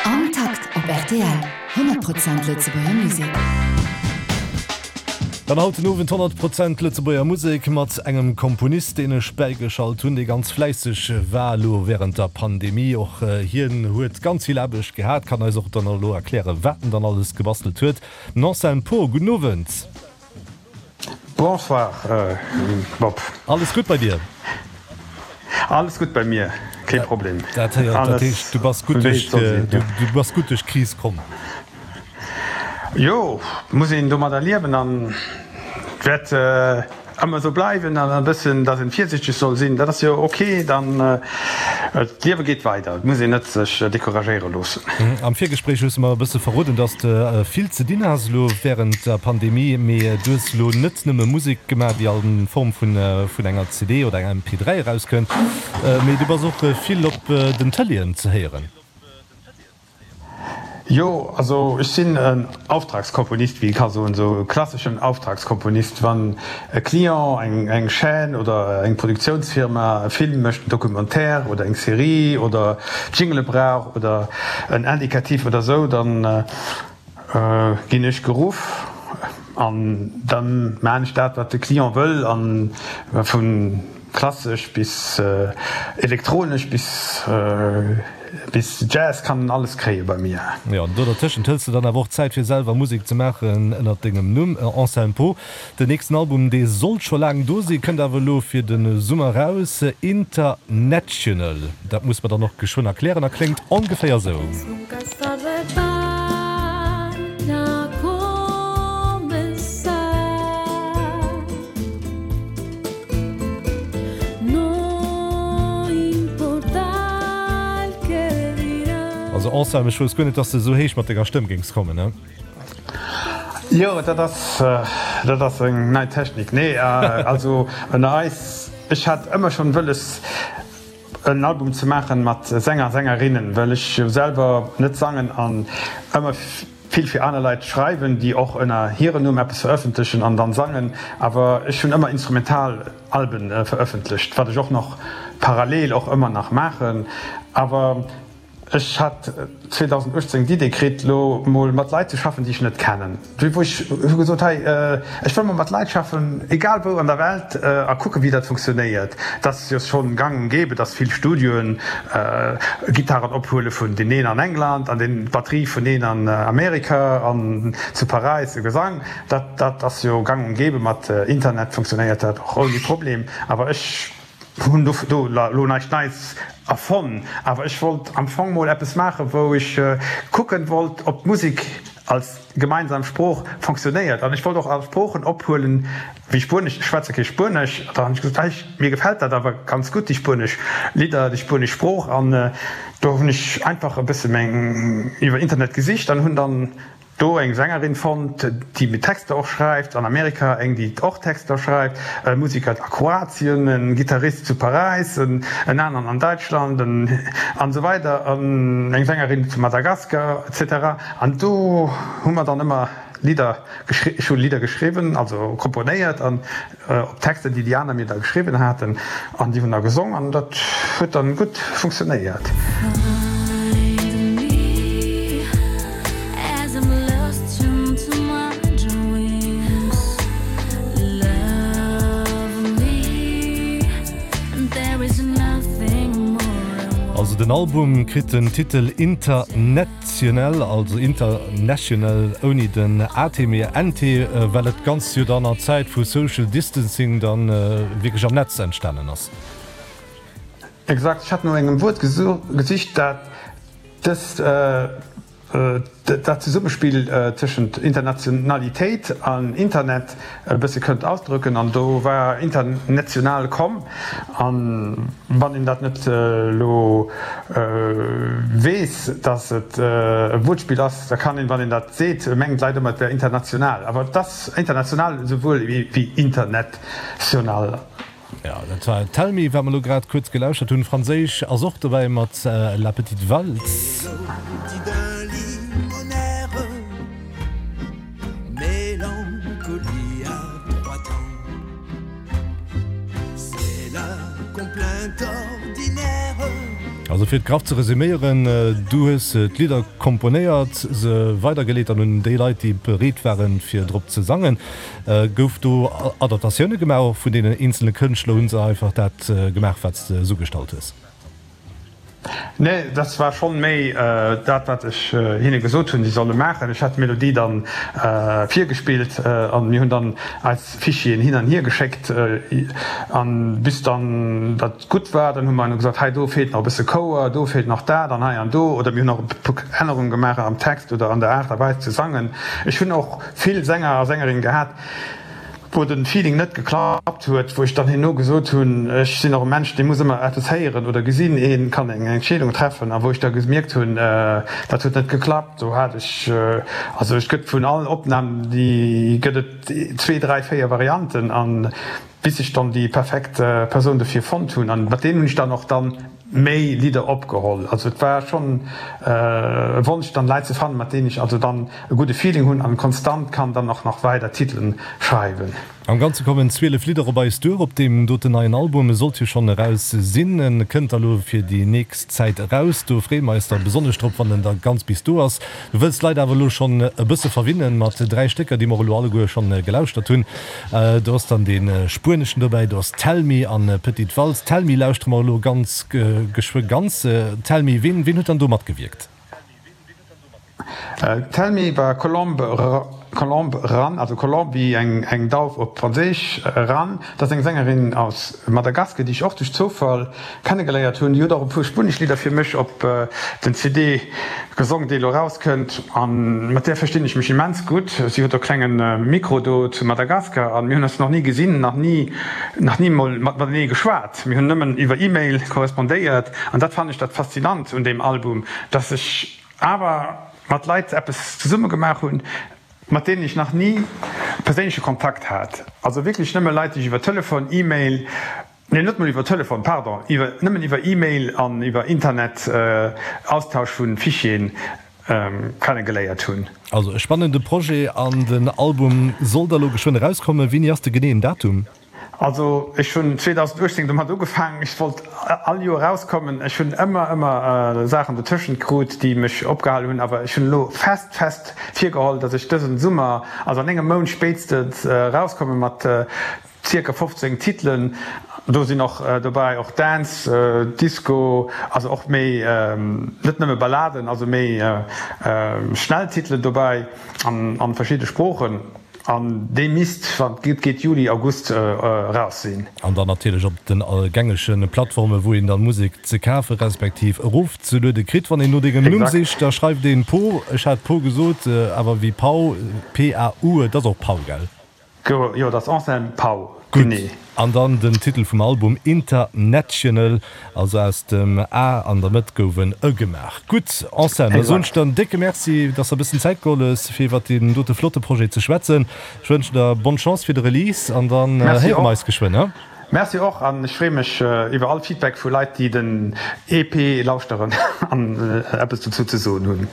Am Takt op rtl, 100 Prozent Lëtzebuerger Musek. Dann haut den Owend 100 Prozent Lëtzebuerger Musek mat engem Komponist, deen ech bäigeschalt hunn, dee ganz fläisseg war elo wärend der Pandemie. Och hien huet ganz vill Aarbecht gehat, kann eis och dann elo erklären, wat en dann alles gebastelt huet. Den Anselme Poh, gudden Owend. Bonsoir Bob. Alles gutt bei dir? Alles gutt bei mir, kee Problem. Dat héiert, dat heescht du bass gutt duerch, du bass gutt duerch d'Kris komm? Jo, muss een domadder liewen an wäert ëmmer esou bleiwen an e bëssen, datt een virsichteg soll sinn, dat ass jo ok. Dann d'Liewe geet weider, et muss een net sech decouragéiere loossen. Am Virgespréich hues de mer e bësse verroden, datt s de vill ze dinn has elo wärend der Pandemie, mee du hues elo net nëmme Musek gemaach, déi a Form vun enger CD oder enger MP3 erauskënnt, mee du bass och vill op den Tëleeën ze héieren. Jo, also ech sinn en Auftragskomponist, wéi ee ka soen, esou e klasseschen Auftragskomponist. Wann e Client, eng eng Chaîne oder eng Produktiounsfirma e Film mécht, en Documentaire oder eng Serie oder Jingele brauch oder en Indicatif oder esou, dann ginn ech geruff an dann maan ech dat, wat de Client wëll an vun Klassesch bis elektronesch bis bis Jazz kann en alles kréie bei mir. Jo, an do dertëschent hëls de dann awer och Zäit fir selwer Musek ze maachen ënnert dengem Numm Anselme Poh. Den nächsten Album, dee sollt scho laang do sinn, kënnt awer elo fir de Summer raus, International. Dat muss mer dann och geschwënn erklären a kléngt ongeféier sou. Also Anselme, ech wousst guer net, dass de esou héich mat denger Stëmm géings kommen, ne? Jo, dat ass, dat ass eng nei Technik. Nee, also ënner eis, ech hat ëmmer schonn wëlles en Album ze maachen mat Sänger, Sängerinnen, well ech jo selwer net sangen an ëmmer vill fir aner Leit schreiwen, déi och ënner hiren Numm eppes verëffentlechen an dann sangen. Awer ech hunn ëmmer instrumental Alben verëffentlecht, wat ech och nach parallel och ëmmer nach maachen. Awer ech hat 2018 d'Idee kritt, lo mol mat Leit ze schaffen, déi ech net kennen. Wou ech hu gesot, hei, ech wëll mol mat Leit schaffen, egal wou an der Welt, a kucken, wéi dat funktionéiert. Et ass jo schonn gang und gäbe, dass vill Studioen Gittaren ophuele vun deen een an England an deen d'Batterie vun een an Amerika an zu Paräis e Gesang. Dat dat ass jo gang und gäbe. Mat Internet funktionéiert dat och ouni Problem. Awer ech hunn do do elo näischt Neits erfonnt. Awer ech wollt am Fong mol eppes maachen, wou ech kucken wollt, ob d'Musek als gemeinsam Sprooch fonctionnéiert. An ech wollt och all Sproochen ophuelen, wéi Spuenesch, ech schwätze kee Spuenesch, da hunn ech gesot, hei, mir gefält dat awer ganz gutt, déi spuenesch Lidder, déi spuenesch Sprooch. An do hunn ech einfach e bësse meng iwwer Internet gesicht an hunn dann do eng Sängerin fonnt, déi mir Texter och schreift, an Amerika eng, déi och Texter schreift, e Musiker a Kroatien, e Gittarist zu Paräis, en aneren an Däitschland, en an esou weider, an eng Sängerin zu Madagaskar, etc. An do hu mer dann ëmmer Lidder geschri, ech hu Lidder geschriwwen, also komponéiert an op Texter, déi déi aner mir da geschriwwen haten, an déi hunn da gesong an dat huet dann gutt funktionéiert. Also den Album kritt den Titel Internet. National, also international ouni den AT mee NT, well et Ganzt jo dann an Zäit vu Social Distancing dann wierklech am Netz entstanen ass. Exakt, ech hat no engem Wuert gesicht, dat dëst, dat Zesummespill tëschent Internationalitéit an Internet e bësse kënnt ausdrücken, an do war international komm. An wann een dat net elo weess, datt et e Wuertspill ass, da kann een, wann een dat seet, mengen d'Leit ëmmer, et wär international. Awer et ass international esouwuel wéi international. Jo, dat war Tell Me, wat mer elo grad kuerz gelauschert hunn. Franséisch ass och dobäi mat La Petite Valse. Also fir et graff ze resuméieren, du hues d'Lidder komponéiert, se weidergeleet an un déi Leit, déi bereet waren, fir drop ze sangen. Gouf do Adaptatioune gemaach och vun deenen eenzele Kënschtler? Hu se einfach dat gemaach, wat s de esougestallt hues? Nee, dat war schonn méi dat, wat ech hinne gesot hunn, si solle maachen. Ech hat d'Melodie dann virgespillt an mir hunn dann eis Fichieren hin an hier geschéckt an bis dann dat gutt war, dann hu mer gesot, hei do feelt nach e bësse Chouer, do feelt nach dat an hei an do. Oder mir hunn och e puer Ännerunge gemaach am Text oder an der Aart a Weis ze sangen. Ech hunn och vill Sänger a Sängerinne gehat, wou den Feeling net geklappt huet, wou ech dann herno gesot hunn, ech sinn och e Mensch, dee muss ëmmer eppes héieren oder gesinn, ee kann eng Entscheedung treffen, a wou ech da gemierkt hunn, dat huet net geklappt, do hat ech, also et gëtt vun allen Opnamen, déi gëtt et zwee, dräi, véier Varianten, an bis ech dann déi perfekt Persoun dofir fonnt hunn, an mat deenen hunn ech dann och dann méi Lidder opgeholl. Also et war schonn e Wonsch dann Leit ze fannen, mat deenen ech also dann e gudde Feeling hunn an konstant kann dann och nach weider Titelen schreiwen. Am Ganze kommen 12 Lidder op eis duer op deem doten neien Album. E sollt jo schonn eraus sinn. En kënnt da lo fir déi nächst Zäit eraus. Do freeë mer eis da besonnesch drop, wann en da ganz bis do ass. Du wëlls d'Leit awer elo schonn e bësse verwinnen mat 3 Stécker, déi mer och elo alleguer schonn gelauschtert hunn. Do ass dann dee spueneschen dobäi, do ass Tell Me an Petite Valse. Tell Me lauschtere mer elo ganz geschwë ganz. Tell Me, ween ween huet dann do matgewierkt? Tell Me war Colombe Colombe Ran, also Colombe wéi eng eng Dauf op Franséisch, Ran, dat ass eng Sängerin aus Madagasker, déi ech och duerch Zoufall kennegeléiert hunn. Déi huet och e puer spuenesch Lidder fir mech op den CD gesong, dee elo erauskënnt. A mat där verstinn ech mech immens gutt. Si huet och klenge Mikro do zu Madagaskar a mir hunn eis nach ni gesinn, nach ni, nach ni mol matenee geschwat. Mir hunn nëmmen iwwer E-Mail korrespondéiert. An dat fannen ech dat Faszinant un deem Album, dass ech awer mat Leit eppes zesumme gemaach hunn, mat deenen ech nach ni perséinleche Kontakt hat. Also wierklech nëmme Leit, déi ech iwwer Telefon, E-Mail, Nee, net mol iwwer Telefon, pardon, iwwer, nëmmen iwwer E-Mail an iwwer Internet, Austausch vu Fichieren kennegeléiert hunn. Also e spannende Projet an den Album soll da lo geschwënn erauskommen. Wéini ass de geneeën Datum? Also ech hunn 2018 domat ugefaangen, ech wollt all Joer erauskommen. Ech hunn ëmmer, ëmmer Saachen dotëschent krut, déi mech opgehal hunn, awer ech hunn elo fest, fest virgeholl, datt ech dësen Summer, also an engem Mount spéitstens, erauskomme mat Zirka 15 Titelen, do sinn och dobäi och Dance, Disco, also och méi, net nëmme Balladen, also méi schnell Titelen dobäi an verschidde Sproochen. An dee misst, wann et gutt geet, Juli, August eraus sinn. An dann natierlech op den gängege Plattformen, wou een dann Musek ze kafe respektiv erofzeluede kritt. Wann een no dengem Numm sicht, da schreift een Po, ech hat Po gesot, awer wéi Pau, P-A-U, et ass och Pau, gell? Jo, dat ass Anselme Pau, genee. Gutt, an dann den Titel vum Album International, also aus dem A an der Mëtt gouf en Ë gemaach. Gutt, Anselme, da soen ech der en décke Merci, dass der e bëssen Zäit geholl hues, fir iwwert deen dote flotte Projet ze schwätzen. Ech wënschen der bonne Chance fir de Release an dann héiere mer eis geschwënn, he? Merci och, an ech freeë mech iwwer all Feedback vu Leit, déi den EP lauschteren an eppes dozou ze soen hunn.